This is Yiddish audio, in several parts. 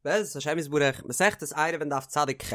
בעזרת השם יתברך, מסכת עירובין דף צדיק ח'.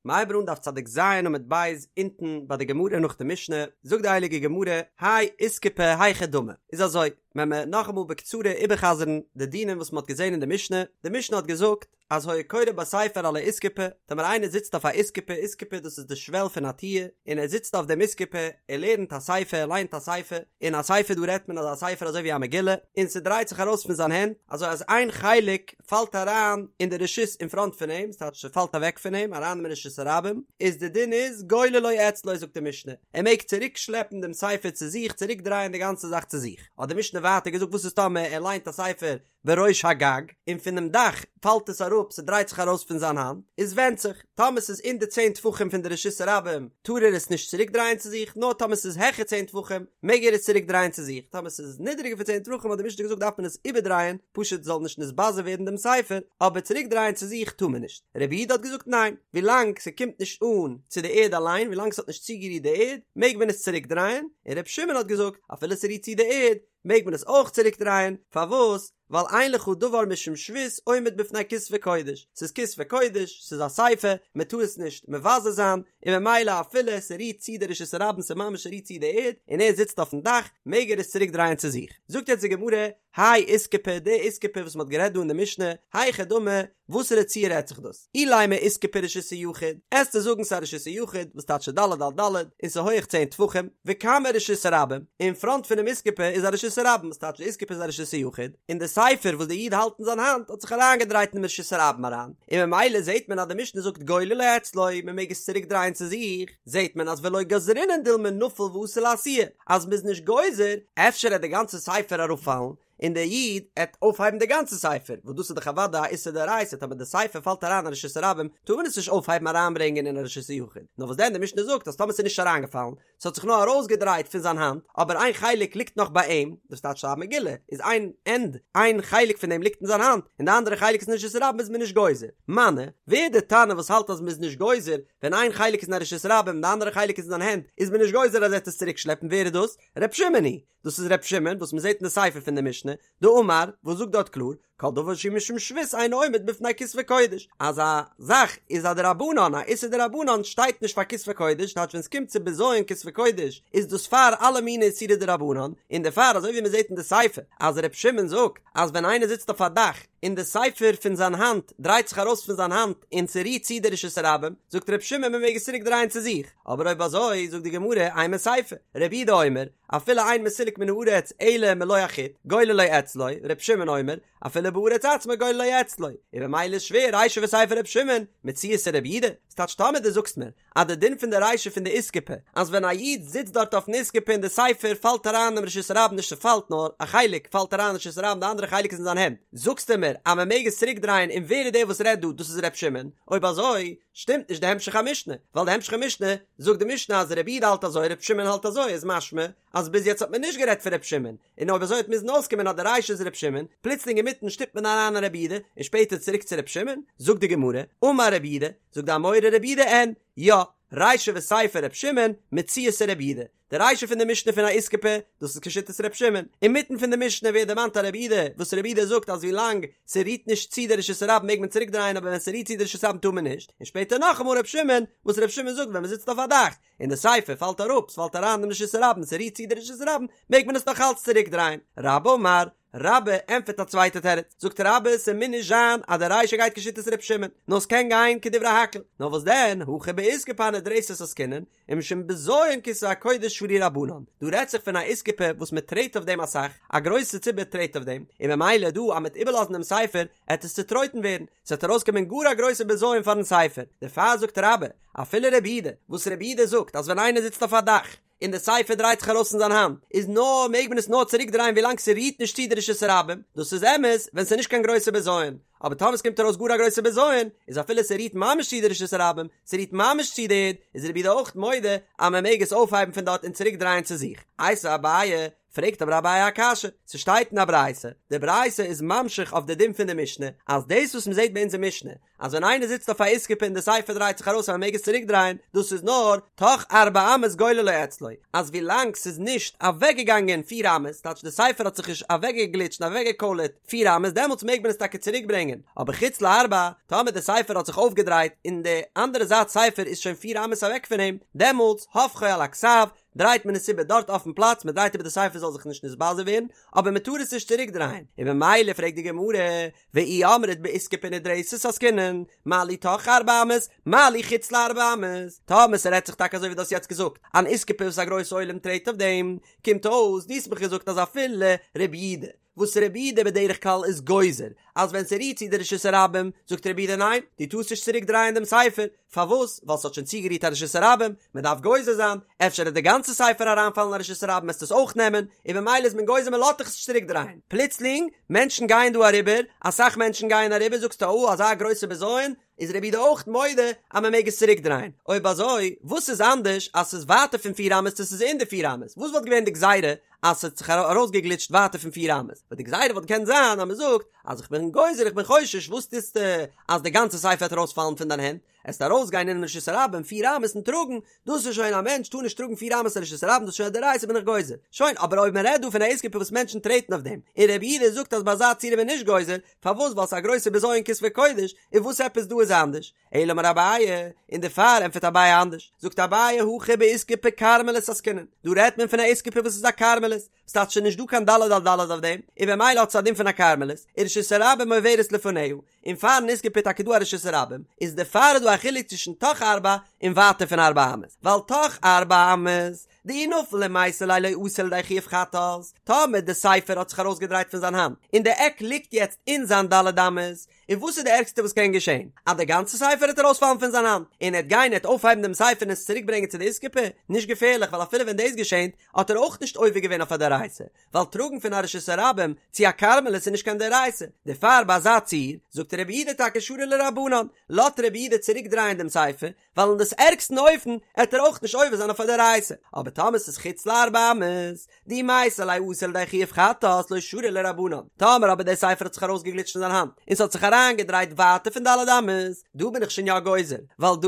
מ'הייבט אן דף צדיק ז' עמוד ב', אונטן ביי די גמרא נאך די משנה, זאגט די הייליגע גמרא, האי איסקופה היכי דמי, איז אזוי, וועלן מיר נאכאמאל בקצרה איבערחזר'ן די דינים וואס מ'האט געזען אין די משנה, די משנה האט געזאגט, אז היה קורא בספר על האיסקופה, טאמער איינער זיצט אויף א איסקופה, איסקופה דאס איז די שוועל פון א טיר, און ער זיצט אויף דעם איסקופה, ער לערנט א ספר, ער ליינט א ספר, און א ספר דא רעדט מען אזא ספר אזוי ווי א מגילה, און ס'דרייט זיך ארויס פון זיין הענט, אזוי אז איין חלק פאלט אריין אין די רשות אין פראנט פון אים, ס'טייטש ס'פאלט אוועק פון אים אריין אין רשות הרבים, איז די דין איז גוללו אצלו זאגט די משנה, ער מעג צוריק שלעפן דעם ספר צו זיך, צוריק דרייען די גאנצע זאך צו זיך. האט די משנה ווייטער געזאגט וואס איז טאמער ער ליינט א ספר בראש הגג, און פונעם דאך פאלט עס אראפ, ס'דרייט זיך ארויס פון זיין האנט, איז ווענדט זיך, טאמער ס'איז אין די צען טפחים פון די רשות הרבים, טאר ער עס נישט צוריק דרייען צו זיך, נאר טאמער ס'איז העכער צען טפחים, מעג ער עס צוריק דרייען צו זיך, טאמער ס'איז נידעריגער פון צען טפחים האט די משנה געזאגט דארף מען עס איבערדרייען, פשוט זאל נישט נתבזה ווערן דעם ספר, אבער צוריק דרייען צו זיך טאר מען נישט. רבי יהודה האט געזאגט ניין, ווילאנג ס'קומט נישט אן צו די ערד אליין, ווילאנג ס'האט נישט צוגערירט די ערד, מעג מען עס צוריק דרייען, און רבי שמעון האט געזאגט, אפילו ס'רירט צו די ערד, מעג מען עס אויך צוריק דרייען, פארוואס? ווייל אין לך דבר משום שבות עומד בפני כתבי קודש, ס'איז כתבי קודש, ס'איז א ספר, מען טאר עס נישט מבזה זיין, און ממילא אפילו ס'רירט צו די רשות הרבים ס'ממש רירט צו די ערד, און ער זיצט אויפן דאך, מעג ער עס צוריק דרייען צו זיך. זאגט יעצט די גמרא, האי איסקופה, די איסקופה וואס מען האט גערעדט דא אין די משנה, היכי דמי, וואסערע ציור רעדט זיך דאס? אילימא איסקופה רשות היחיד, עסטו זאגן ס'איז א רשות היחיד, וואס טייטש ד' על ד', און ס'איז הויעך צען טפחים, וקמיה רשות הרבים, אין פראנט פונעם איסקופה איז א רשות הרבים, וואס טייטש די איסקופה איז א רשות היחיד, און די ספר וואס די איד האלט אין זיין האנט האט זיך אריינגעדרייט אינעם רשות הרבים אריין, און ממילא זעט מען אז די משנה זאגט גוללו אצלו, מ'מעג עס צוריק דרייען צו זיך, זעט מען אז ולא גזרינן דילמא נפיל ואתי לאתויי, אז מ'איז נישט גוזר, אפשר עט די גאנצע ספר אראפפאלן, און דער איד עט אויפהייבן די גאנצע ספר, וואס דאס איז דאך אוודאי א איסור דאורייתא, טאמער די ספר פאלט אריין אין רשות הרבים, טאר מען עס נישט אויפהייבן אריינברענגען אין א רשות היחיד, נאר וואס דען די משנה זאגט אז טאמער ס'איז נישט אריינגעפאלן, ס'האט זיך נאר ארויסגעדרייט פון זיין האנט, אבער איין חלק ליגט נאך ביי אים, דאס טייטש א מגילה, איז איין ענד, איין חלק פון דעם ליגט אין זיין האנט, און די אנדערע חלק איז אין רשות הרבים איז מען נישט גוזר. מני, ווער די תנא וואס האלט אז מ'איז נישט גוזר, ווען איין חלק איז אין א רשות הרבים און די אנדערע חלק איז אין זיין הענט, איז מען נישט גוזר אז ער וועט עס צוריקשלעפן, ווער איז דאס? ר' שמעון היא! דאס איז ר' שמעון וואס מ'זעט אין די סיפא פון די משנה, דאמר, וואס זאגט דארט קלאר, כל דבר שהוא משום שבות אינו עומד בפני כתבי קודש, אז א זאך איז א דרבנן, א איסור דרבנן שטייט נישט פאר כתבי קודש, טייטש ווען ס'קומט צו בזיון כתבי קודש איז דאס פאר אלע מיני איסורי דרבנן, און דערפאר אזוי ווי מ'זעט אין די סיפא אז ר' שמעון זאגט אז ווען איינער זיצט אויף א דאך און די ספר פון זיין האנט דרייט זיך ארויס פון זיין האנט און ס'רירט צו די רשות הרבים, זאגט ר' שמעון מ'מעג עס צוריק דרייען צו זיך, אבער אויב אזוי זאגט די גמרא אימא סיפא, רבי יהודה אומר, אפילו אין מסולק מן הארץ אלא מלא החוט, גוללו אצלו, ר' שמעון אומר, אפילו בארץ עצמה גוללו אצלו, און ממילא איז שווער רישא וסיפא ר' שמעון, מציעתא רבי יהודה, ס'טייטש טאמער דו זאגסט מיר אז די דין פון די רישא פון די איסקופה אז ווען א איד זיצט דארט אויפן איסקופה און די ספר פאלט אריין אינעם רשות הרבים נישט ס'פאלט נאר א חלק פאלט אריין אין רשות הרבים די אנדערע חלק איז אין זיין הענט זאגסטו מיר אז מ'מעג עס צוריק דרייען און ווער איז דער וואס רעדט דא דאס איז ר' שמעון אויב אזוי שטימט נישט די המשך המשנה ווייל די המשך המשנה זאגט די משנה אז רבי יהודה האלט אזוי ר' שמעון האלט אזוי איז משמע אז ביז יעצט האט מען נישט גערעדט פון ר' שמעון און אויב אזוי האט מוזן אויסקומען אז די רישא איז ר' שמעון, פלוצלינג אינמיטן שטופט מען אריין א רבי יהודה, און שפעטער צוריק צו ר' שמעון, זאגט די גמרא, אמר רב יהודה, זאגט די אמורא רב יהודה אין, יא, רישא וסיפא ר' שמעון, מציעתא רבי יהודה, די רישא פון די משנה פון א איסקופה, דאס איז כשיטת ר' שמעון, אינמיטן פון די משנה ווערט דערמאנט א רבי יהודה, וואס רבי יהודה זאגט אז ווילאנג ס'רירט נישט צו די רשות הרבים מעג מען צוריק דרייען אבער ווען ס'רירט צו די רשות הרבים טאר מען נישט, און שפעטער נאכאמאל ר' שמעון, וואס ר' שמעון זאגט ווען מ'זיצט אויף א דאך, און די ספר פאלט אראפ, ס'פאלט אריין אין רשות הרבים, ס'רירט צו די רשות הרבים, מעג מען עס נאך אלץ צוריק דרייען. רבה אמר, רבה ענטפערט א צווייטע תירוץ, זאגט רבה, ס'מוז נישט זיין אז די רישא גייט כשיטת ר' שמעון, נאר ס'קען גיין כדברי הכל, נאר וואס דען, הכא באיסקופה הנדרסת עסקינן, ומשום בזיון כתבי הקודש שרו רבנן, דא רעדט זיך פון א איסקופה וואס מען טרעט אויף דעם אסאך, א גרויסע ציבור טרעט אויף דעם, און ממילא דא אז מ'עט איבערלאזן דעם ספר, עט עס צוטרויטן ווערן, ס'וועט ארויסקומען גאר א גרויסע בזיון פארן ספר, דערפאר זאגט רבה, אפילו רבי יהודה, וואס רבי יהודה זאגט אז ווען איינער זיצט אויף א דאך, און די ספר דרייט זיך ארויס פון זיין האנט, איז נאר מעג מען עס נאר צוריק דרייען ווילאנג ס'רירט נישט צו די רשות הרבים, דאס איז אמת ווען ס'איז נישט קיין גרויסע בזיון, אבער טאמער ס'קומט ארויס גאר א גרויסע בזיון, איז אפילו ס'רירט ממש צו די רשות הרבים, ס'רירט ממש צו די ערד, איז רבי יהודה אויך מודה אז מען מעג עס אויפהייבן פון דארט און צוריק דרייען צו זיך. איתיביה אביי. פרעגט אבער אביי א קשיא, ס'שטייט אין א ברייתא, די ברייתא איז ממשיך אויף די דין פון די משנה, אז דאס וואס מ'זעט ביי אונזער משנה, אז ווען איינער זיצט אויף א איסקופה און די ספר דרייט זיך ארויס אז מ'מעג עס צוריק דרייען, דאס איז נאר תוך ארבע אמות גוללו אצלו, אז ווילאנג ס'איז נישט אוועקגעגאנגען פיר אמות, טייטש די ספר האט זיך נישט אוועקגעגליטשט און אוועקגעקוילערט פיר אמות, דעמאלטס מעג מען עס טאקע צוריק ברענגען, אבער חוץ לארבע, טאמער די ספר האט זיך אויפגעדרייט און די אנדערע זייט ספר איז שוין פיר אמות אוועק פון אים, דעמאלטס הופכו על הכתב, דרייט מען עס איבער דארט אויפן פלאץ, מען דרייט איבער די ספר זאל זיך נישט נתבזה ווערן, אבער מען טאר עס נישט צוריק דרייען, און ממילא פרעגט די גמרא, ואי אמרת באיסקופה נדרסת עסקינן, מה לי תוך ארבע אמות, מה לי חוץ לארבע אמות, טאמער ס'רעדט זיך טאקע אזוי ווי דו האסט יעצט געזאגט, אן איסקופה וואס א גרויס עולם טרעט אויף דעם, קומט אויס דו האסט מיך געזאגט אז אפילו רבי יהודה, וואס רבי יהודה בדרך כלל איז גוזר אז ווען ס'רירט צו די רשות הרבים, זאגט רבי יהודה ניין, דו טארסט נישט צוריק דרייען דעם ספר, פארוואס? ווייל ס'האט שוין צוגערירט א רשות הרבים, מ'דארף גוזר זיין, אפשר וועט די גאנצע ספר אריינפאלן אין א רשות הרבים וועסטו עס אויך נעמען, און במילא איז מען גוזר מ'לאזט דיך עס נישט צוריק דרייען. פלוצלינג, מענטשן גייען דא אריבער, אסאך מענטשן גייען אריבער, זאגסטו או אזא גרויסע בזיון, איז רבי יהודה אויך מודה אז מען מעג עס צוריק דרייען, אויב אזוי וואס איז אנדערש אז ס'איז ווייטער פון פיר אמות צו ס'איז אין די פיר אמות, וואס וואלט געווען די גזירה אז ס'האט זיך ארויסגעגליטשט ווייטער פון פיר אמות, ווייל די גזירה וואלט געקענט זיין אז מען זאגט אז איך בין גוזר איך בין חושש וואס טוסטו אז די גאנצע ספר וועט ארויספאלן פון דיין הענט, עסט ארויסגיין אינעם רשות הרבים פיר אמות און טראגן, דאס איז שוין א מענטש טאר נישט טראגן פיר אמות אין רשות הרבים דאס איז שוין א דאורייתא בין איך גוזר, שוין אבער אויב מען רעדט דא פון א איסקופה וואס מענטשן טרעטן אויף דעם, און רבי יהודה זאגט אז ביי אזא ציור איז מען נישט גוזר, פארוואס ווייל ס'איז א גרויסע בזיון כתבי קודש, און וואס עפעס דא איז אנדערש? אלא אמר אביי, און דערפאר ענטפערט אביי אנדערש, זאגט אביי הכא באיסקופה כרמלית עסקינן, דא רעדט מען פון א איסקופה וואס איז א כרמלית, ס'טייטש ס'איז נישט דא קיין ד' על ד' אויף דעם, און במילא האט עס א דין פון א כרמלית, ורשות הרבים עוברת לפניה, און פארן איסקופה איז טאקע דא א רשות הרבים, איז דערפאר איז דא א חילוק צווישן תוך ארבע און ווייטער פון ארבע אמות, ווייל תוך ארבע אמות, דאי נפיל ומייתי ליה לא אתי לידי חיוב חטאת, טאמער די ספר האט זיך ארויסגעדרייט פון זיין האנט, און די עק ליגט יעצט אין זיין ד' אמות, און וואס איז די ערגסטע וואס קען געשען? אז די גאנצע ספר וועט ארויספאלן פון זיין האנט, און ער וועט גיין ער וועט אויפהייבן דעם ספר און עס צוריק ברענגען צו די איסקופה? נישט געפערליך ווייל אפילו ווען דאס געשענט האט ער אויך נישט עובר געווען אויף א דאורייתא, ווייל טראגן פון א רשות הרבים צו א כרמלית איז נישט קיין דאורייתא, דערפאר ביי אזא ציור זאגט רבי יהודה טאקע שרי לרבנן, לאזט רבי יהודה צוריק דרייען דעם ספר, ווייל אין דאס ערגסטן אופן עט ער אויך נישט עובר זיין אויף א דאורייתא, אבער טאמער ס'איז חוץ לארבע אמות, דאי מייתי ליה אתי לידי חיוב חטאת לא שרי לרבנן, טאמער אבער דער ספר האט זיך ארויסגעגליטשט פון זיין האנט און ס'האט זיך אריינגעדרייט ווייטער פון ד' אמות, דא בין איך שוין יא גוזר, ווייל דא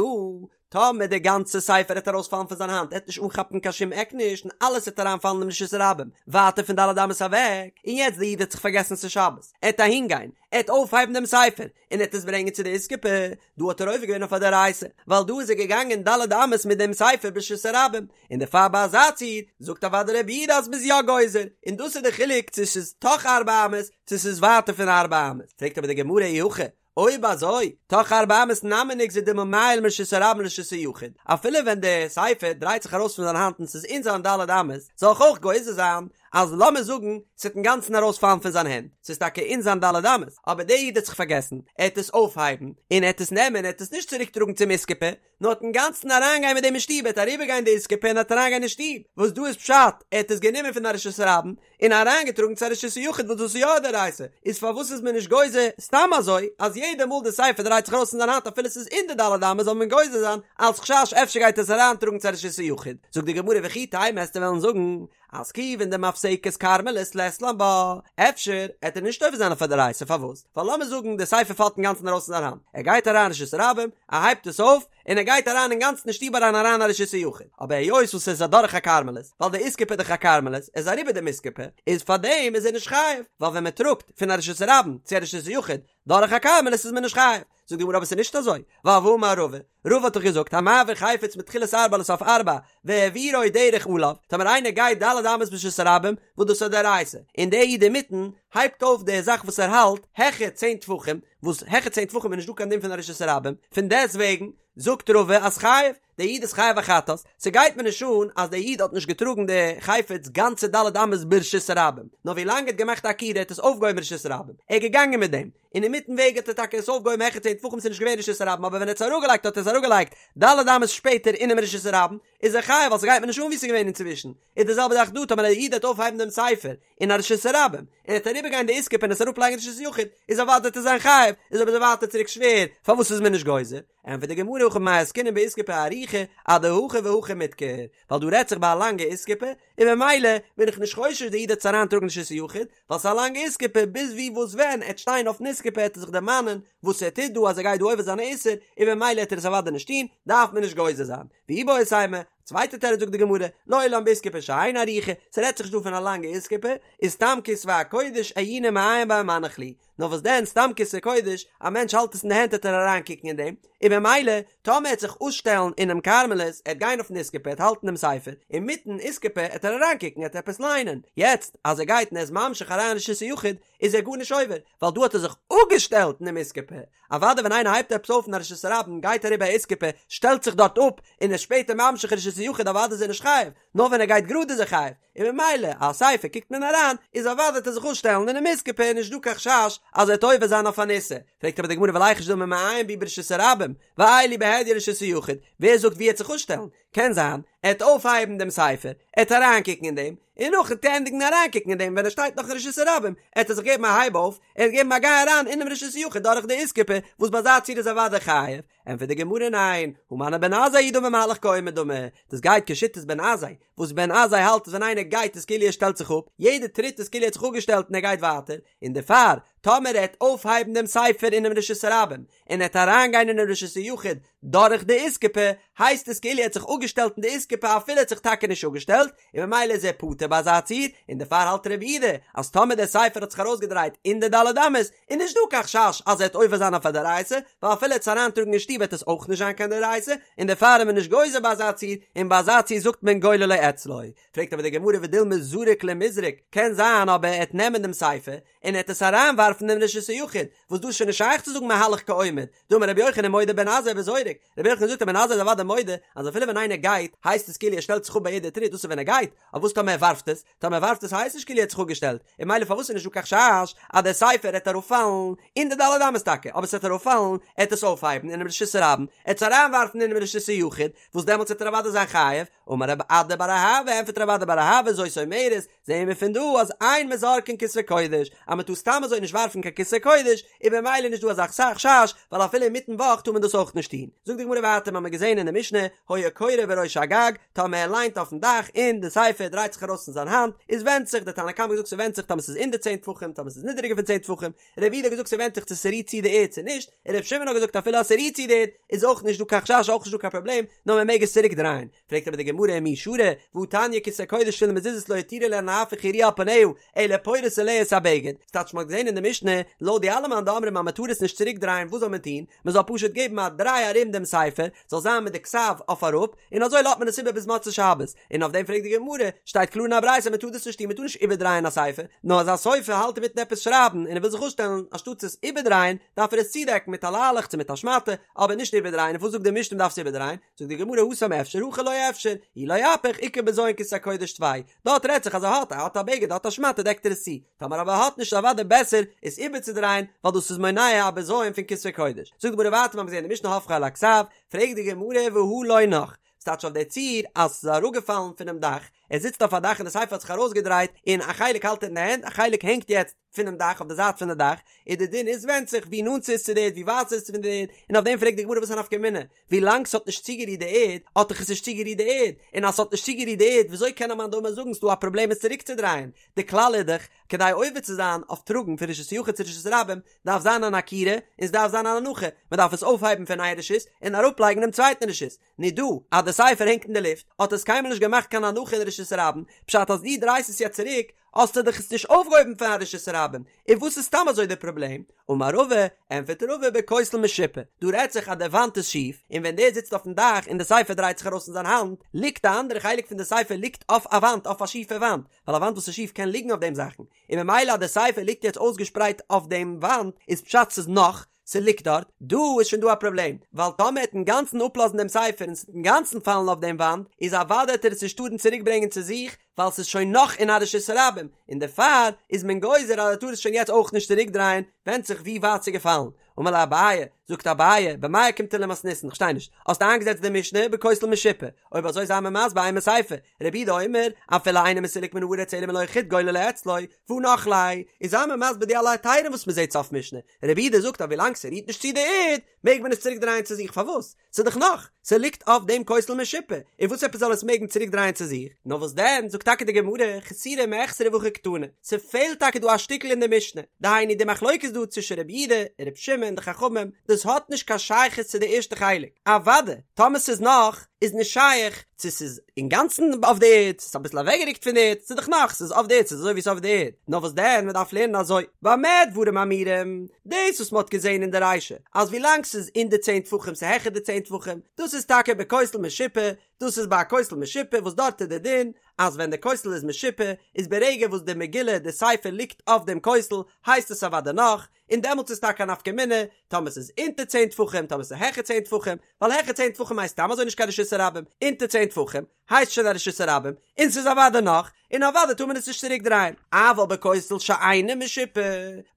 טאמער דער גאנצער ספר עט ארויספאלן פון זיין האנט עט נישט אנכאפן קיין שום עק נישט און אלעס עט אריינפאלן אין רשות הרבים ווייטער פון ד' אמות אוועק, און יעצט דער איד האט זיך פארגעסן ס'איז שבת, עט אהינגיין, עט אויפהייבן דעם ספר, און עט עס ברענגען צו די איסקופה, דא האט ער עובר געווען אויף א דאורייתא, ווייל דא איז ער געגאנגען ד' אמות מיט דעם ספר ברשות הרבים, און דערפאר ביי אזא ציור זאגט אוודאי רבי יהודה אז מ'איז יא גוזר, און דאס איז די חילוק צו ס'איז תוך ארבע אמות צו ס'איז ווייטער פון ארבע אמות, פרעגט אבער די גמרא אי הכי, אויב אזוי, תוך ארבע אמות נמי ניגזור דילמא מעייל מרשות הרבים לרשות היחיד, אפילו ווען די ספר דרייט זיך ארויס פון זיין האנט און ס'איז אין זיין ד' אמות, זאל איך אויך גוזר זיין אז לאמיר זאגן ס'וועט אינגאנצן ארויספאלן פון זיין הענט, ס'איז טאקע אין זיין ד' אמות, אבער דער איד האט זיך פארגעסן, ער העט עס אויפהייבן, און ער העט עס נעמען, ער העט עס נישט צוריק טראגן צום איסקופה, נאר העט אינגאנצן אריינגיין מיט דעם אין שטוב, ער העט אריבערגיין די איסקופה און העט אריינגיין אין שטוב, וואס דא איז פשט, ער האט עס גענומען פון א רשות הרבים, און אריינגעטראגן צו א רשות היחיד וואס דאס איז יא א דאורייתא, איז פארוואס איז מען נישט גוזר סתם אזוי אז יעדע מאל די ספר דרייט זיך ארויס פון זיין האנט אפילו ס'איז אין די ד' אמות זאל מען גוזר זיין אלס חשש אפשר גייט עס אריינטראגן צו א רשות היחיד, זאגט די גמרא וכי תימא עסטו וועלן זאגן אז כיוון דמפסקת כרמלית לית לן בה, אפשר עט ער נישט עובר זיין אויף א דאורייתא פארוואס? ווייל לאמיר זאגן די ספר פאלט אינגאנצן ארויס פון זיין האנט, ער גייט אריין רשות הרבים, ער הייבט עס אויף, און ער גייט אריין אינגאנצן אין שטוב אריין אריין א רשות היחיד, אבער היות וואס עס איז אדורך א כרמלית, ווייל די איסקופה איז דאך א כרמלית, ער איז אריבער דעם איסקופה, איז פארדעם איז ער נישט חייב, ווייל ווען מען טראגט פון א רשות הרבים צו א רשות היחיד דורך א כרמלית איז מען נישט חייב. זאגט די גמרא אבער עס איז נישט אזוי, ווייל והאמר רבא, רבא האט דאך געזאגט המעביר חפץ מתחילת ארבע לסוף ארבע, והעבירו דרך עליו, טאמער איינער גייט ד' אמות ברשות הרבים, וואס דאס איז א דאורייתא, און דער איד אינמיטן הייבט אויף די זאך וואס ער האלט העכער צען טפחים, וואס העכער צען טפחים איז נישט דא קיין דין פון א רשות הרבים, פון דעסט וועגן זאגט רבא אז חייב, דער איד איז חייב א חטאת, ס'גייט מיר נישט אן אז דער איד האט נישט געטראגן די חפץ גאנצע ד' אמות ברשות הרבים, נאר ווי לאנג ער האט געמאכט א עקירה האט עס אויפגעהויבן ברשות הרבים, ער איז געגאנגען מיט דעם, און אינמיטן וועג האט ער טאקע עס אויפגעהויבן העכער צען טפחים ס'איז נישט געווען רשות הרבים אבער ווען ער האט עס אראפגעלייגט האט ער עס אראפגעלייגט ד' אמות שפעטער אינעם רשות הרבים, איז ער חייב ווייל ס'גייט מיר נישט אן ווי ס'איז געווען אינצווישן, איז די זעלבע זאך דא טאמער א איד וועט אויפהייבן דעם ספר אין א רשות הרבים און ער וועט אריבערגיין די איסקופה און עס אראפלייגן רשות היחיד איז אוודאי וועט ער זיין חייב, איז אבער ווייטער צוריק שווער פארוואס איז מען נישט גוזר? ענטפערט די גמרא הכא במאי עסקינן באיסקופה ארוכה אדהכי והכי מידכר, ווייל דא רעדט זיך ביי א לאנגע איסקופה, און ממילא בין איך נישט חושש די איד וועט עס אריינטראגן רשות היחיד, ווייל ס'איז א לאנגע איסקופה, ביז ווי וואס ווען ער וועט שטיין אויפן איסקופה העט ער זיך דערמאנען וואס ער טוט דא אז ער גייט דא עובר זיין א איסור, און ממילא העט ער עס אוודאי נישט טון, דארף מען נישט גוזר זיין. ואיבעית אימא, צווייטע תירוץ זאגט די גמרא, לעולם באיסקופה שאינה ארוכה, ס'רעדט זיך נישט דא פון א לאנגע איסקופה, איז סתם כתבי הקודש עיוני מעיין ביה ומנח להו, נאר וואס דען סתם כתבי קודש, א מענטש האלט עס אין די הענט העט ער אריין קוקן אין דעם, און במילא טאמער ער העט זיך אפשטעלן אינעם כרמלית, ער העט גיין אויפן איסקופה ער העט האלטן דעם ספר, אינמיטן איסקופה העט ער אריין קוקן העט ער עפעס ליינען, יעצט אז ער גייט און ער איז ממשיך אריין רשות היחיד איז ער גארנישט עובר, ווייל דא האט ער זיך אפגעשטעלט אינעם איסקופה, אוודאי ווען איינער הייבט עפעס אויף אין א רשות הרבים גייט אריבער א איסקופה שטעלט זיך דארט אפ און איז שפעטער ממשיך רשות היחיד אוודאי איז ער נישט חייב, נאר ווען ער גייט גראד איז ער חייב, און ממילא א ספר קוקט מען אריין איז אוודאי וועט ער זיך אפשטעלן אינעם איסקופה איז נישט דא קיין חשש אז ער וועט עובר זיין אויף אן איסור, פרעגט אבער די גמרא וליחוש דילמא מעיין בהו ברשות הרבים ועייל להו בהדיא לרשות היחיד, ווער זאגט ווי ער וועט זיך אפשטעלן, קען זיין ער וועט אויפהייבן דעם ספר, ער וועט אריינקוקן אין דעם, און נאכן ענדיגן אריינקוקן אין דעם ווען ער שטייט נאך אין רשות הרבים, עט ער זיך געבן א הייב אויף, ער וועט געבן א גיי אריין אינעם רשות היחיד דורך די איסקופה, וואס ביי אזא ציור איז אוודאי חייב. ענטפערט די גמרא ניין, הא מני בן עזאי היא דאמר מהלך כעומד דמי, דאס גייט כשיטת בן עזאי, וואס בן עזאי האלט אז ווען איינער גייט איז כאילו ער שטעלט זיך אפ, יעדע טריט איז כאילו ער האט זיך אפגעשטעלט און ער גייט ווייטער, און דערפאר, טאמער ער העט אויפהייבן דעם ספר אינעם רשות הרבים, און ער העט אריינגיין אינעם רשות היחיד דורך די איסקופה, הייסט עס כאילו ער האט זיך אפגעשטעלט אין די איסקופה אפילו ער האט זיך טאקע נישט אפגעשטעלט, און ממילא איז ער פטור ביי אזא ציור, און דערפאר האלט רבי יהודה אז טאמער דער ספר האט זיך ארויסגעדרייט אין די ד' אמות, איז נישט דא קיין חשש אז ער וועט עובר זיין אויף א דאורייתא, ווייל אפילו ער וועט עס אריינטראגן אין שטוב וועט עס אויך נישט זיין קיין דאורייתא, און דערפאר איז מען נישט גוזר ביי אזא ציור, און ביי אזא ציור זאגט מען גוללו אצלו. פרעגט אבער די גמרא ודילמא זריק למיזרק, קען זיין אבער ער וועט נעמען דעם ספר, און ער וועט עס אריינווארפן אין רשות היחיד, וואס דא איז שוין נישט שייך צו זאגן מהלך כעומד, דאמר רבי יוחנן מודה בן עזאי בזורק, רבי יוחנן זאגט אז בן עזאי איז אוודאי מודה אז אפילו ווען איינער גייט הייסט עס כאילו ער שטעלט זיך אפ ביי יעדע טריט דאס איז ווען ער גייט, אבער וואס טאמער ער ווארפט עס? טאמער ער ווארפט עס הייסט נישט כאילו ער האט זיך אפגעשטעלט, און ממילא פארוואס איז נישט דא קיין חשש אז דער ספר העט אראפפאלן אין די ד' אמות טאקע, אבער ס'וועט אראפפאלן, ער העט עס אויפהייבן אינעם רשות הרבים, ער העט עס אריינווארפן אינעם רשות היחיד, וואס דעמאלטס וועט ער אוודאי זיין חייב, אמר רב אדא בר אהבה, ענטפערט רב אדא בר אהבה, זאת אומרת, זעהן מיר פון דא אז אין מזרקין כתבי קודש, אז מען טאר סתם אזוי נישט ווארפן קיין כתבי קודש, איז במילא נישט דא אזא חשש, ווייל אפילו אינמיטן וואך טאר מען דאס אויך נישט טון. זאגט די גמרא ווייטער, מ'האמיר געזעהן אין די משנה, היה קורא בראש הגג, טאמער ער ליינט אויפן דאך און די ספר דרייט זיך ארויס פון זיין האנט, איז ווענדט זיך, די תנא קמא האט געזאגט ס'ווענדט זיך טאמער ס'איז אונטער צען טפחים, טאמער ס'איז נידעריגער פון צען טפחים, רבי יהודה האט געזאגט ס'ווענדט זיך צו ס'רירט צו די ערד צו נישט, און רבי שמעון האט געזאגט אפילו אז ס'רירט צו די ערד איז אויך נישט דא קיין חשש אויך נישט דא קיין פראבלעם, נאר מען מעג עס צוריק דרייען. פרעגט אבער די גמרא ומי שרי, והא תניא כתבי קודש תפילין ומזוזות לא הותירו להן להפוך היריעה על פניה, אלא פורס עליה את הבגד, ס'טייטש מ'האט געזען אין די משנה, לויט די אלע מאן דאמרים אז מ'טאר עס נישט צוריק דרייען וואס זאל מען טון? מ'זאל פשוט געבן א דריי ארום דעם ספר, זאל זיין מיט די כתב אויף אראפ, און אזוי לאזט מען עס איבער ביז מוצאי שבת. און אויף דעם פרעגט די גמרא, שטייט קלאר אין א ברייתא מ'טאר דאס נישט טון, מ'טאר נישט איבערדרייען א ספר, נאר אז א סופר האלט אינמיטן עפעס שרייבן און ער וויל זיך אפשטעלן, אנשטאטס עס איבערדרייען, דארף ער עס צודעקן מיט א ליילעך צו מיט א שמאטע, אבער נישט איבערדרייען, און וואס זאגט די משנה מ'דארף עס איבערדרייען? זאגט די גמרא התם אפשר הכא לא אפשר, אי לא אפיך איכא בזיון כתבי קודש טפי, דארט רעדט זיך אז ער האט, ער האט א בגד, ער האט א שמאטע דעקט ער עס צו, טאמער אבער ער האט נישט איז אוודאי בעסער עס איבערצודרייען ווייל דאס איז מונע א בזיון פון כתבי קודש. זאגט די גמרא ווייטער מ'האט געזען אין די משנה הופכו על הכתב, פרעגט די גמרא והא לא נח, ס'טייטש אויף די ציור אז ס'איז אראפגעפאלן פונעם דאך, ער זיצט אויף א דאך און די ספר האט זיך ארויסגעדרייט און א חלק האלט ער אין די הענט א חלק הענגט יעצט פונעם דאך אויף די זייט פון די דאך, און די דין איז ווענדט זיך ווי נאנט ס'איז צו די ערד ווי ווייט ס'איז פון די ערד, און אויף דעם פרעגט די גמרא וואס איז א נפקא מינה, ווי לאנג ס'האט נישט צוגערירט די ערד האט דאך עס נישט צוגערירט די ערד, און אז ס'האט נישט צוגערירט די ערד וויאזוי קען א מאן דאמר זאגן ס'דא א פראבלעם עס צוריקצודרייען, די כלל איז דאך כדי עובר צו זיין אויף טראגן פון רשות היחיד צו רשות הרבים דארף זיין אן עקירה און ס'דארף זיין אן הנחה, מ'דארף עס אויפהייבן פון איין רשות און אראפלייגן דעם צווייטן רשות, נו דא אז די ספר הענגט אין די לופט האט עס קיינמאל נישט געמאכט קיין הנחה אין רשות הרבים, פשט אז דו דרייסט עס יעצט צוריק האסטו דאך עס נישט אויפגעהויבן פון א רשות הרבים, און וואס איז סתם אזוי די פראבלעם? אמר רבא, ענטפערט רבא בכותל משופע, דא רעדט זיך אז די וואנט איז שיף, און ווען דער זיצט אויפן דאך און די ספר דרייט זיך ארויס אין זיין האנט, ליגט די אנדערע חלק פון די ספר ליגט אויף א וואנט, אויף א שיפע וואנט, ווייל א וואנט וואס איז שיף קען ליגן אויף דעם זאכן, און ממילא אז די ספר ליגט יעצט אויסגעשפרייט אויף דעם וואנט, איז פשט ס'איז נח, ס'ליגט דארט, דא איז שוין דא א פראבלעם, ווייל טאמער ער וועט אינגאנצן אפלאזן דעם ספר און ס'וועט אינגאנצן פאלן אויף דעם וואנט, איז אוודאי וועט ער עס נישט טארן צוריק ברענגען צו זיך, ווייל ס'איז שוין נח אין א רשות הרבים, און דערפאר איז מען גוזר אז ער טאר עס שוין יעצט אויך נישט צוריק דרייען, ווענדט זיך ווי ווייט ס'איז געפאלן. אמר ליה אביי, זאגט אביי, במאי אוקימתא למתניתין, כ'שטיי נישט, האסט איינגעזעצט די משנה בכותל משופע, אויב אזוי זיי מיר מסביר אימא סיפא, רבי יהודה אומר, אפילו אינו מסולק מן הארץ אלא מלא החוט גוללו אצלו, והא נח ליה, איז זיי מיר מסביר די אלע היתרים וואס מ'זעט סוף משנה, רבי יהודה זאגט אז ווילאנג ס'רירט נישט צו די ערד, מעג מען עס צוריק דרייען צו זיך, פארוואס? ס'איז דאך נח, ס'ליגט אויף דעם כותל משופע, און וואס עפעס זאל עס מעגן צוריק דרייען צו זיך? נאר וואס דען, זאגט טאקע די גמרא, חסורי מחסרא והכי קתני, ס'פעלט טאקע דא א שטיקל אין די משנה, דהיינו די מחלוקת דא צווישן רבי יהודה און רבי שמעון די חכמים, דאס האט נישט קיין שייכות צו די ערשטע חלק, אוודאי טאמער ס'איז נח איז נישט שייך צו ס'איז אינגאנצן אויף די ערד, ס'איז אביסל אוועקגערוקט פון די ערד, ס'איז דאך נח, ס'איז אויף די ערד, ס'איז אזוי ווי ס'איז אויף די ערד, נאר וואס דען, מ'דארף לערנען אזוי, במה דברים אמורים, דאס וואס מ'האט געזען אין די רישא, אז ווילאנג ס'איז אין די צען טפחים ס'איז העכער די צען טפחים, דאס איז טאקע בכותל משופע, דאס איז ביי א כותל משופע וואס דארט איז די דין אז ווען די כותל איז משופע איז ברגע וואס די מגילה די ספר ליגט אויף דעם כותל הייסט עס אוודאי נח, און דעמאלטס איז טאקע א נפקא מינה טאמער ס'איז אונטער צען טפחים טאמער ס'איז העכער צען טפחים, ווייל העכער צען טפחים הייסט סתם אזוי נישט קיין רשות הרבים, אונטער צען טפחים הייסט שוין א רשות הרבים, און ס'איז אוודאי נח, און אוודאי טאר מען עס נישט צוריק דרייען. אבל בכותל שאינו משופע,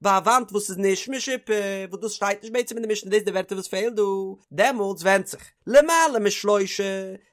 ביי א וואנט וואס איז נישט משופע, וואס דאס שטייט נישט בעצם אין די משנה דאס די ווערטער וואס פעלט דא, דעמאלטס ווענדט זיך, למעלה משלושה,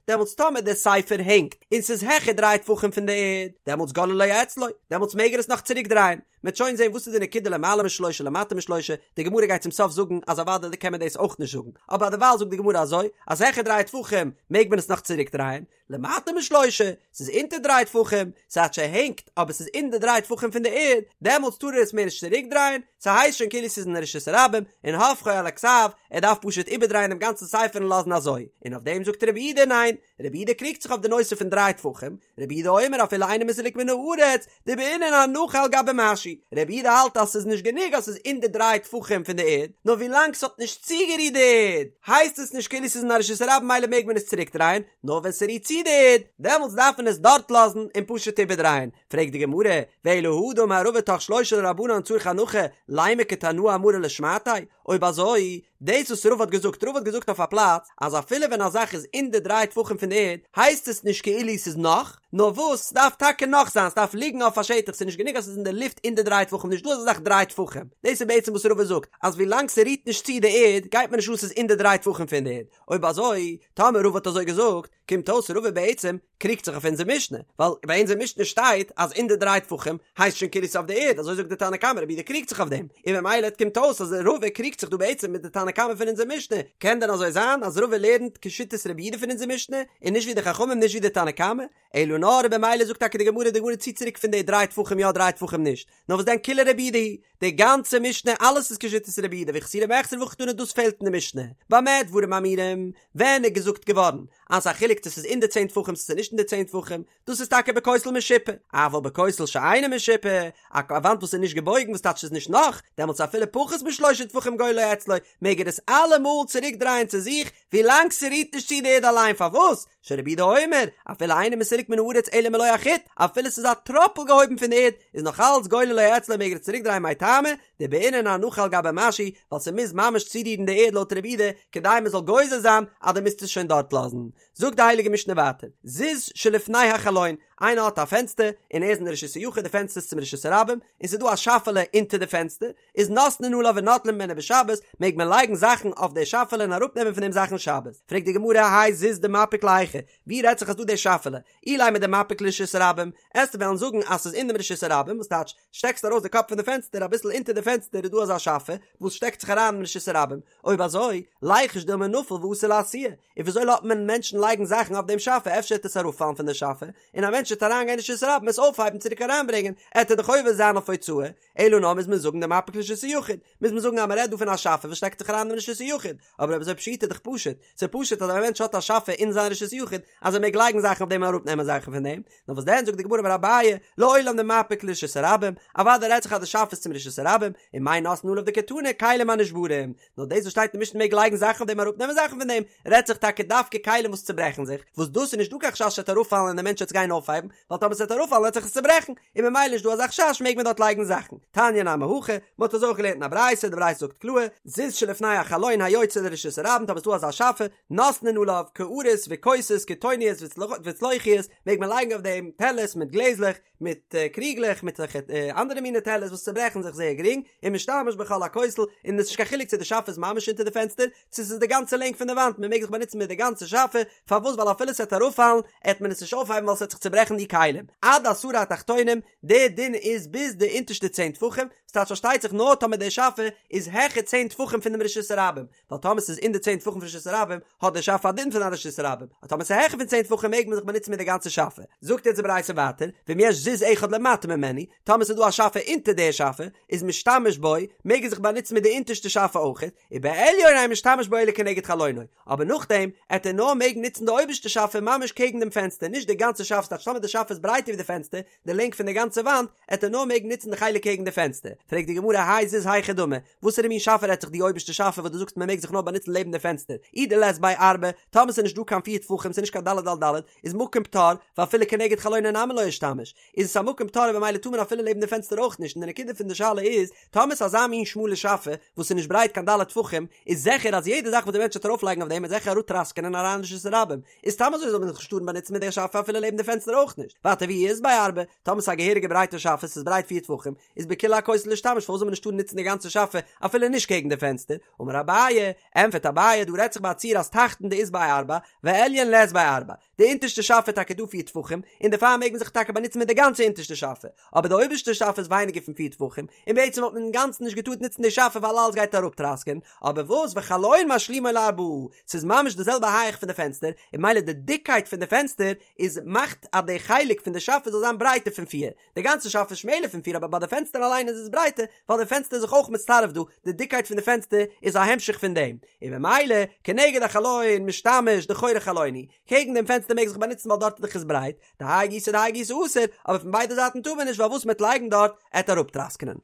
דעמאלטס טאמער דער ספר הענגט און ס'איז העכער דריי טפחים פון די ערד, דעמאלטס גוללו אצלו, דעמאלטס מעג ער עס נאך צוריק דרייען, מ'וועט שוין זען וואס איז די נקודה למעלה משלושה למטה משלושה, די גמרא גייט צום סוף זאגן אז אוודאי קען מען דאס אויך נישט זאגן, אבער דערווייל זאגט די גמרא אזוי, אז העכער דריי טפחים מעג מען עס נאך צוריק דרייען, למטה משלושה, ס'איז אונטער דריי טפחים, ס'טייטש ס'הענגט אבער ס'איז אין די דריי טפחים פון די ערד, דעמאלטס טאר ער עס מער נישט צוריק דרייען, ס'הייסט שוין כאילו ס'איז אין רשות הרבים, און הופכו על הכתב, ער דארף פשוט איבערדרייען דעם גאנצן ספר און לאזן אזוי, און אויף דעם זאגט רבי יהודה ניין, רבי יהודה קריגט זיך אויף די נושא פון דריי טפחים, רבי יהודה אומר אפילו אינו מסולק מן הארץ, דבעינן הנחה על גבי משהו, רבי יהודה האלט אז ס'איז נישט גענוג אז ס'איז אין די דריי טפחים פון די ערד, נאר ווילאנג ס'האט נישט צוגערירט די ערד, הייסט עס נישט כאילו ס'איז אין א רשות הרבים ממילא מעג מען עס צוריקדרייען, נאר ווען ס'רירט צו די ערד, דעמאלטס דארף מען עס דארט לאזן און פשוט איבערדרייען. פרעגט די גמרא, ואלא הא דאמר רבא תוך שלושה לרבנן צריך הנחה, לימא כתנאי אמרה לשמעתיה, אויב אזוי, דאס וואס רבא האט געזאגט, רבא האט געזאגט אויף א פלאץ, אז אפילו ווען א זאך איז אין די דריי טפחים פון די ערד, הייסט עס נישט כאילו ס'איז נח, נאר וואס, ס'דארף טאקע נח זיין, ס'דארף ליגן אויף א שטח, ס'איז נישט גענוג אז ס'איז אין די לופט אין די דריי טפחים, נישט דא אזא זאך דריי טפחים, דאס איז בעצם וואס רבא זאגט, אז ווילאנג ס'רירט נישט צו די ערד, גייט מיר נישט אן ס'איז אין די דריי טפחים פון די ערד, אויב אזוי, טאמער רבא האט אזוי געזאגט, קומט אויס רבא בעצם קריגט זיך אויף אונזער משנה, ווייל ביי אונזער משנה שטייט אז אין די דריי טפחים הייסט שוין כאילו ס'איז אויף די ערד, אזוי זאגט די תנא קמא, רבי יהודה קריגט זיך אויף דעם, און ממילא קומט אויס אז רבא קריגט זיך דא בעצם מיט די תנא קמא פון אונזער משנה, קען דען אזוי זיין אז רבא לערנט כשיטת רבי יהודה פון אונזער משנה, און נישט ווי די חכמים נישט ווי די תנא קמא? אלא נאר במילא זאגט טאקע די גמרא, די גמרא ציט צוריק פון די דריי טפחים יא דריי טפחים נישט, נאר וואס דען כולה רבי יהודה היא, די גאנצע משנה אלעס איז כשיטת רבי יהודה וחסורי מחסרא והכי קתני דאס פעלט אין די משנה, במה דברים אמורים, ווען איז געזאגט געווארן אז ס'איז א חילוק צו ס'איז אין די צען טפחים צו ס'איז נישט אין די צען טפחים, דאס איז טאקע בכותל משופע, אבל בכותל שאינו משופע, א וואנט וואס איז נישט געבויגן וואס טייטש ס'איז נישט נח, דעמאלטס אפילו פחות משלושה טפחים גוללו אצלו, מעג ער עס אלעמאל צוריק דרייען צו זיך, ווילאנג ס'רירט נישט צו די ערד אליין, פארוואס? שרבי יהודה אומר, אפילו אינו מסולק מן הארץ אלא מלא החוט, אפילו ס'איז א טראפל געהויבן פון די ערד, איז נאך אלץ גוללו אצלו מעג ער עס צוריק דרייען מאי טעמא, דבעינן הנחה על גבי משהו, ווייל ס'מוז ממש צורירן די ערד לויט רבי יהודה, כדי מ'זאל גוזר זיין אז דו מוזט עס שוין דארט לאזן. זאגט די הייליגע משנה ווייטער, זיז שלפני החלון, איינער האט א פענסטער, און ער איז אין די רשות היחיד, די פענסטער איז צום רשות הרבים, און ס'איז דא א שאפעלע אונטער די פענסטער, איז נותנין עליו ונוטלין ממנו בשבת, מעג מען לייגן זאכן אויף די שאפעלע און אראפנעמען פון דעם זאכן שבת. פרעגט די גמרא, האי זיז דמפיק להיכא, ווי רעדט זיך אז דא די שאפעלע? אילימא דמפיק לרשות הרבים, עסטו וועלן זאגן אז ס'איז אין דעם רשות הרבים, וואס טייטש, שטעקסט ארויס די קאפ פון די פענסטער, אביסל אונטער די פענסטער איז דא אזא שאפע, וואס שטעקט זיך אריין אין רשות הרבים, אויב אזוי, ליחוש דילמא נפיל ואתי לאתויי, און וויאזוי לאזט מען מענטשן לייגן זאכן אויף דעם שאפע, אפשר וועט עס אראפפאלן פון די שאפע, און א מענטש וועט אריינגיין אין רשות הרבים עס אויפהייבן צוריק אריינברענגען, עט ער דאך עובר זיין אויף הוצאה, אלא נאר מוז מען זאגן דמפיק לרשות היחיד, מוז מען זאגן אז מען רעדט דא פון א שאפע וואס שטעקט זיך אריין אין רשות היחיד, אבער אויב אזוי פשיטא איז דאך פשוט, ס'איז פשוט אז א מענטש האט א שאפע אין זיין רשות היחיד אז ער מעג לייגן זאכן אויף דעם און אראפנעמען זאכן פון דעם, נאר וואס דען זאגט די גמרא אמר אביי, לעולם דמפיק לרשות הרבים, אוודאי רעדט זיך אז די שאפע איז צום רשות הרבים, און מאי נותנין עליו דקתני כלים הנשברים, נאר דאס וואס שטייט אין משנה מעג לייגן זאכן אויף דעם אראפנעמען זאכן פון דעם, רעדט זיך טאקע דווקא כלים וואס צוברעכן זיך, וואס דאס איז נישט דא קיין חשש ס'וועט אראפפאלן און דער מענטש וועט עס גיין אויפהייבן, ווייל טאמער ס'וועט אראפפאלן וועט זיך עס צוברעכן, און ממילא נישט דא אזא חשש מעג מען דארט לייגן זאכן. תניא נמי הכי, מ'האט אזוי אויך געלערנט אין א ברייתא, די ברייתא זאגט קלאר, זיז שלפני. לפני החלון היוצא לרשות הרבים, טאמער ס'איז דא אזא שאפע, נותנין עליו קערות וכוסות קיטוניות וצלוחיות, מעג מען לייגן אויף דעם טעלערס מיט גלעזלעך, מיט קריגלעך, מיט אזעלכע אנדערע מיני טעלערס וואס צוברעכן זיך זייער גרינג, ומשתמש בכל הכותל, און עס איז נישט קיין חילוק צו די שאפע איז ממש אונטער די פענסטער, צו ס'איז די גאנצע לענג פון די וואנט, מען מעג זיך באנוצן מיט די גאנצע שאפע, פארוואס ווייל אפילו ס'עט אראפפאלן, עט מען עס נישט אויפהייבן ווייל ס'עט זיך צוברעכן די כלים. עד עשרה התחתונים, די דין איז ביז די אונטערשטע צען טפחים, ס'טייטש פארשטייט זיך נאר טאמער די שאפע איז העכער צען טפחים פון דעם רשות הרבים, ווייל טאמער ס'איז אין די צען טפחים פון רשות הרבים, האט די שאפע א דין פון א רשות הרבים, אבער טאמער ס'איז העכער פון צען טפחים מעג מען זיך באנוצן מיט די גאנצע שאפע. זאגט יעצט די ברייתא ווייטער, ואם יש זיז אחד למטה ממנו, טאמער ס'איז דא א שאפע אונטער די שאפע, איז משתמש בו, מעג ער זיך באנוצן מיט די אונטערשטע שאפע אויכעט, ובעליון אין משתמש בו אלא כנגד חלונו, אבער נאכדעם עט ער נאר מעגן נוצן די אויבערשטע שאפע ממש קעגן דעם פענסטער, נישט די גאנצע שאפע, ס'טייטש טאמער די שאפע איז ברייטער ווי די פענסטער, די לענג פון די גאנצע וואנט, עט ער נאר מעגן נוצן די חלק קעגן די פענסטער. פרעגט די גמרא האי זיז היכי דמי, וואסערע מין שאפע רעדט זיך די אויבערשטע שאפע וואס דו זאגסט מען מעג זיך נאר באנוצן לעבן די פענסטער, אי דלית ביה ארבע, טאמער ס'איז נישט דא קיין פיר טפחים ס'איז נישט קיין ד' על ד', איז מקום פטור, ואפילו כנגד חלונו נמי לא אישתמיש, איז עס א מקום פטור און במילא טאר מען אפילו לעבן די פענסטער אויך נישט און די נקודה פון די שאלה איז, טאמער ס'איז אזא מין שמאלע שאפע וואס איז נישט ברייט קיין ד' טפחים, איז זיכער אז יעדע זאך וואס די מענטש וועט ארויפלייגן אויף דעם וועט זיכער אראפטראסקענען אריין אין רשות הרבים, איז סתם אזוי זאל מען זיך נישט טארן באנוצן מיט דער שאפע אפילו לעבן די פענסטער אויך נישט, ווייטער ואי אית ביה ארבע, טאמער ס'איז א געהעריגע ברייטע שאפע ס'איז ברייט פיר טפחים, איז בכולי הכותל לישתמש פארוואס זאל מען נישט טארן נוצן די גאנצע שאפע אפילו נישט קעגן די פענסטער, אמר אביי, ענפערט אביי דא רעדט זיך ביי א ציור אז תחתון דאית ביה ארבע, ועליון לית ביה ארבע, די אונטערשטע שאפע איז טאקע דא פיר טפחים, און דערפאר מעג מען זיך טאקע באנוצן מיט די גאנצע אונטערשטע שאפע, אבער די אויבערשטע שאפע איז ווייניגער פון פיר טפחים, און בעצם וואלט מען אינגאנצן נישט געטארט נוצן די שאפע ווייל אלעס גייט אראפטראסקען, אבער וואס וחלון משלימו לארבעה, ס'איז ממש די זעלבע הייך פון די פענסטער, און ממילא די דיקקייט פון די פענסטער איז מאכט אז די חלק פון די שאפע זאל זיין ברייטער פון פיר, די גאנצע שאפע איז שמעלער פון פיר אבער ביי די פענסטער אליין איז עס ברייטער ווייל די פענסטער איז זיך אויך מצטרף דא, די דיקקייט פון די פענסטער איז א המשך פון דעם, און ממילא כנגד החלון משתמש דחורי חלון הוא, קעגן דעם פענסטער מעג זיך באנוצן ווייל דארט איז דאך עס ברייט, דהאי גיסא דהאי גיסא אסור, אבער פון ביידע זייטן טאר מען נישט ווייל וואס מ'עט לייגן דארט עט אראפטראסקענען.